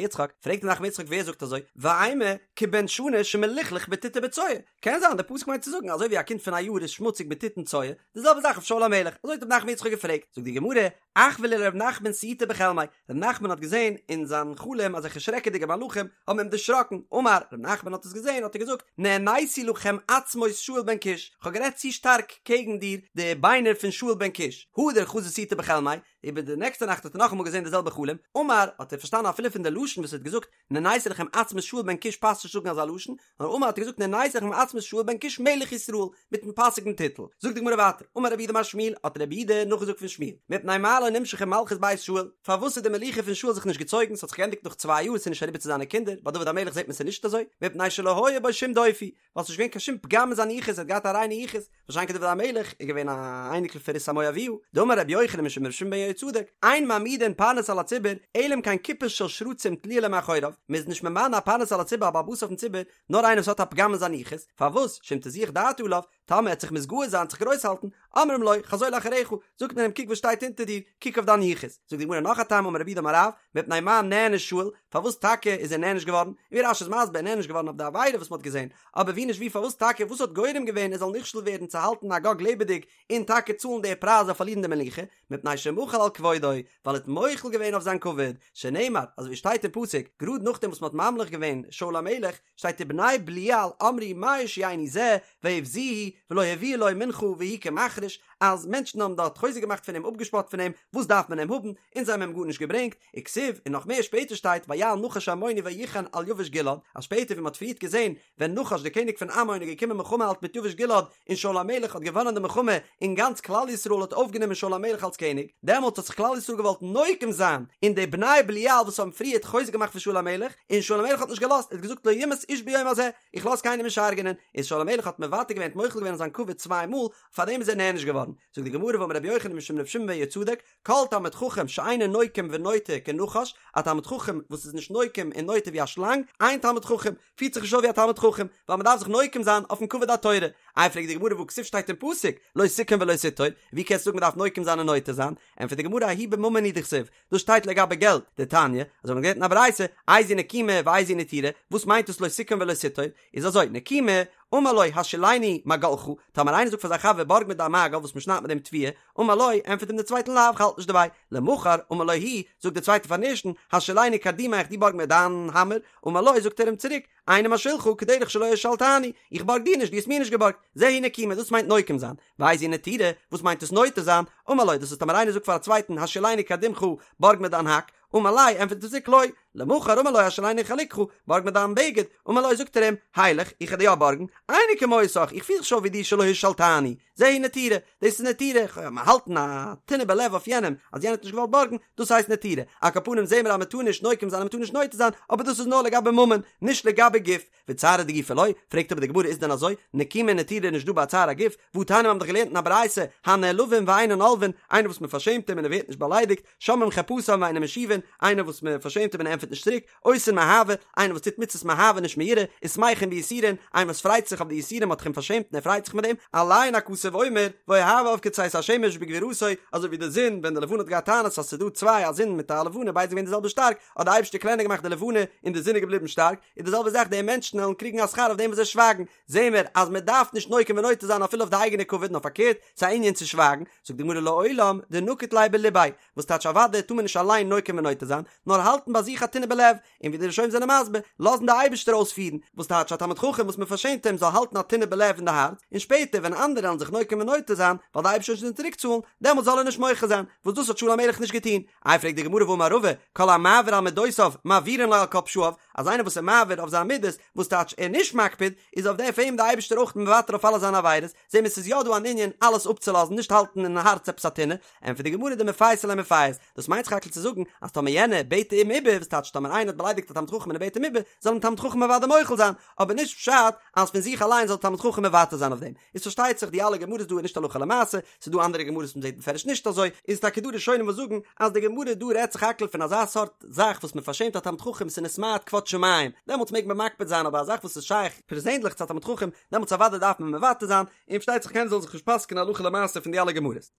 Speaker 1: בר יצחק, פרעגט רב נחמן בר יצחק ווער זאגט אזוי, ואימא כבן שנה שמלוכלך בטיט ובצואה, קען זיין די פסוק מיינט צו זאגן אזוי ווי א קינד פון א יאר איז שמוציג מיט טיט און צואה, די זעלבע זאך אויף שאול המלך, אזוי האט רב נחמן בר יצחק געפרעגט, זאגט די גמרא, אחוי ליה לרב נחמן סיוטא בחלמיה, רב נחמן האט געזען אין זיין חלום אזעלכע שרעקעדיגע מלאכים האבן אים דערשראקן, אמר, רב נחמן האט עס געזען האט ער געזאגט, נעניתי לכם עצמות שאול בן קיש, כ'האב גערעדט צו שטארק קעגן דיר די ביינער פון שאול בן קיש, הדר חזא סיוטא בחלמיה, איבער די נעקסטע נאכט האט ער נאכאמאל געזען די זעלבע חלום, אמר, האט ער פארשטאנען אפילו פון די לשון וואס ער האט געזאגט, נעניתי לכם עצמות שאול בן קיש פאסט נישט זאגן אזא לשון, נאר אמר האט ער געזאגט נעניתי לכם עצמות שאול בן קיש מלך ישראל, מיטן פאסיגן טיטל. זאגט די גמרא ווייטער, אמר רב יהודה אמר שמואל, האט רב יהודה נאכגעזאגט פון שמואל, מפני מה לא נמשכה מלכות בית שאול, פארוואס איז די מלוכה פון שאול זיך נישט געצויגן, ס'האט זיך געענדיגט נאך צוויי יאר, ס'איז נישט אריבער צו זיינע קינדער, ביי דוד המלך זעט מען ס'איז נישט אזוי, מפני שלא היה בו שום דופי, ווייל ס'נישט געווען קיין שום פגם אין זיין יחוס, ער האט געהאט א ריינע יחוס, מה שאין כן דוד המלך איז געווען א אייניקל פון רות המואביה, דאמר רבי יוחנן משום רבי שמעון בן יהוצדק, אין מעמידין פרנס על הציבור, אלא אם כן קופה של שרצים תלויה לו מאחוריו, מ'איז נישט ממנה א פרנס על הציבור א בעל הבית אויפן ציבור, נאר איינער וואס האט א פגם אין זיין יחוס, פארוואס, שאם תזוח דעתו עליו, טאמער ער וועט זיך מתגאה זיין, זיך גרויס האלטן, אומרים לו, חזור לאחריך, זאגט מען אים קוק וואס שטייט אונטער דיר, קוק אויף דיין יחוס. זאגט די גמרא נאך א טעם אמר רב יהודה אמר רב, מפני מה נענש שאול, פארוואס טאקע איז ער נענש געווארן, און ווי רש"י איז מסביר נענש געווארן אויף די עבירה וואס מען האט געזען, אבער ווי נישט ווי פארוואס טאקע וואס האט גורם געווען ער זאל נכשל ווערן צו האלטן אגג לעבעדיג און טאקע צאלן די פרייז אויף פארלירן די מלוכה, מפני שמחל על כבודו, ווייל ער האט מוחל געווען אויף זיין כבוד, שנאמר, אזוי ווי שטייט אין פסוק, גראד נאכדעם וואס מען האט ממליך געווען שאול המלך, שטייט ובני בליעל אמרו מה יושיענו זה ויבזוהו ולא הביאו לו מנחה והוא כמחריש, אז מענטשן האבן דארט חוזק געמאכט פון אים אפגעשפאט פון אים, וואס דארף מען אים האבן, און זיי האבן אים גארנישט געברענגט, וכתיב, און נאך מער שפעטער שטייט ויעל נחש העמוני ויחן על יבש גלעד, אז שפעטער ווי מען האט פריערט געזען ווען נחש דער קעניג פון עמון איז געקומען מלחמה האלטן מיט יבש גלעד און שאול המלך האט געוואנען די מלחמה און גאנץ כלל ישראל האט אויפגענומען שאול המלך אלס קעניג, דעמאלטס האט זיך כלל ישראל געוואלט נוקם זיין אין די בני בליעל וואס האבן פריערט חוזק געמאכט פון שאול המלך, און שאול המלך האט נישט געלאזט, ער האט געזאגט לא יומת איש ביום הזה, איך לאז קיינעם נישט הרג'ענען, איז שאול המלך האט מוותר געווען האט מוחל געווען אויף זיין כבוד צוויי מאל, פארדעם איז ער נענש געווארן. זאגט די גמרא ואמר רבי יוחנן משום רבי שמעון בן יהוצדק, כל תלמיד חכם שאינו נוקם ונוטר כנחש, א תלמיד חכם וואס איז נישט נוקם און נוטר ווי א שלאנג, אין תלמיד חכם, פירט זיך נישט אויף ווי א תלמיד חכם, ווייל מען דארף זיך נוקם זיין אויפן כבוד התורה. איי פרעגט די גמרא והא כתיב שטייט אין פסוק, לא תקום ולא תטור, ווי קענסטו זאגן מען דארף נוקם זיין און נוטר זיין? ענטפערט די גמרא ההוא בממון הוא דכתיב, דאס שטייט לגבי געלט, דתניא, אזוי האט מען געלערנט אין א ברייתא, איזו נקימה ואיזו נטירה, וואס מיינט דאס לא תקום ולא תטור? איז אזוי, נקימה, אמר לו השאילני מגלך, טאמער איינער זאגט פאר זיין חבר בארג מיר דיין מגל וואס מען שניידט מיט דעם תבואה, אמר לו, ענטפערט אים דער צווייטער לאו, כ'האלט נישט דערביי, למחר, אמר לו הוא, זאגט דער צווייטער פארן ערשטן, השאילני קרדומך, דו בארג מיר דיין האמער, אמר לו, זאגט ער אים צוריק, איני משאילך, כדרך שלא השאלתני, איך בארג דיר נישט, דו האסט מיר נישט געבארגט, זו היא נקימה, דאס מיינט נוקם זיין, ואיזו נטירה, וואס מיינט עס נוטר זיין, אמר לו, דאס איז טאמער איינער זאגט פאר א צווייטן, השאילני קרדומך, בארג מיר דיין האק, אמר ליה, ענטפערט ער צוריק לא, למחר אמר לו השאילני חלוקך, בארג מיר דיין בגד, אמר לו זאגט ער אים, הילך, איך וועל דיר יא בארגן, איני כמותך, איך פיר זיך נישט אויף ווי דיר שלא השאלתני, זו היא נטירה, דאס איז נטירה, האלטן א טינא בלב אויף יענעם, אז יענער האט נישט געוואלט בארגן, דאס הייסט נטירה, על כל פנים זעהן מיר אז מען טאר נישט נוקם זיין און מען טאר נישט נוטר זיין, אבער דאס איז נאר לגבי ממון, נישט לגבי גוף. וצערא דגופא לא, פרעגט אבער די גמרא איז דען אזוי, נקימה און נטירה איז נישט דא ביי צער הגוף, והתניא מיר האבן דאך געלערנט אין א ברייתא, הנעלבין ואינן עולבין, איינער וואס מען פארשעמט אים און ער ווערט נישט באליידיגט, שומעים חרפתם ואינן משיבין, איינער וואס מען פארשעמט אים און ער ענטפערט נישט צוריק, עושין מאהבה, איינער וואס טוט מצוות מאהבה נישט מיראה, ושמחין ביסורין, איינער וואס פרייט זיך אויף די יסורים מ'האט אים פארשעמט און ער פרייט זיך מיט דעם, עליהן הכתוב אומר, ואוהביו כצאת השמש בגבורתו, אזוי ווי די זון, ווען די לבנה האט געהאט טענות אז ס'איז דא צוויי א זון מיט א לבנה ביידע זענען געווען די זעלבע שטארק, האט די אייבערשטער קלענער געמאכט די לבנה און די זון איז געבליבן שטארק, איז די זעלבע זאך די מענטשן וועלן קריגן א שכר אויף דעם וואס זיי שווייגן, זעהן מיר אז מען דארף נישט נוקם ונוטר זיין אפילו אויף די אייגענע כבוד נאר פארקערט, ס'איז א ענין צו שווייגן, זאגט די גמרא לעולם דנקיט ליה בליביה, וואס טייטש אוודאי טאר מען נישט אליין נוקם ונוטר זיין, נאר האלטן ביי זיך א טינא בלב, און ווי די ראשונים זענען מסביר, לאזן די אייבערשטער אויספירן, וואס טייטש א תלמיד חכם וואס מען פארשעמט אים זאל האלטן א טינא בלב אין די הארץ, און שפעטער ווען אנדערע וועלן זיך נוקם ונוטר זיין, ווייל די אייבערשטער וועט שוין צוריק צאלן, דעמאלט זאל ער נישט מוחה זיין, וואס דאס האט שאול המלך נישט געטון. איי פרעגט די גמרא והאמר רבא, כל המעביר על מדותיו מעבירין לו על כל פשעיו, אז איינער וואס איז מעביר אויף זיין מידות, וואס טייטש ער נישט מקפיד, איז אויף דעם אים די אייבערשטער אויך מוותר אויף אלע זיינע עבירות, זעהן מיר ס'איז יא דא אן ענין אלעס אפצולאזן נישט האלטן אין הארץ עפעס א טינא, ענטפערט די גמרא דמפייסי ליה מפייס, דאס מיינט סך הכל צו זאגן אז טאמער יענער בעט אים איבער, וואס טייטש טאמער איינער האט באליידיגט א תלמיד חכם און ער בעט אים איבער, זאל אים תלמיד חכם אוודאי מוחל זיין, אבער נישט פשט אז פון זיך אליין זאל תלמיד חכם מוותר זיין אויף דעם. איז פארשטייט זיך די אלע גמרות דא איז נישט הלכה למעשה, ס'איז דא אנדערע גמרות וואס מ'זעט בפירוש נישט אזוי, איז טאקע דא ראשונים וואס זאגן אז די גמרא דא רעדט סך הכל פון אזא סארט זאך וואס מ'פארשעמט א תלמיד חכם ס'איז נתמעט כבוד. שמים, דעמאלטס מעג מען מקפיד זיין אבער א זאך וואס איז שייך פערזענדליך צו א תלמיד חכם, דעמאלטס אוודאי דארף מען מוותר זיין, און פארשטייט זיך קיינער זאל זיך נישט פסק'ענען הלכה למעשה פון די אלע גמרות.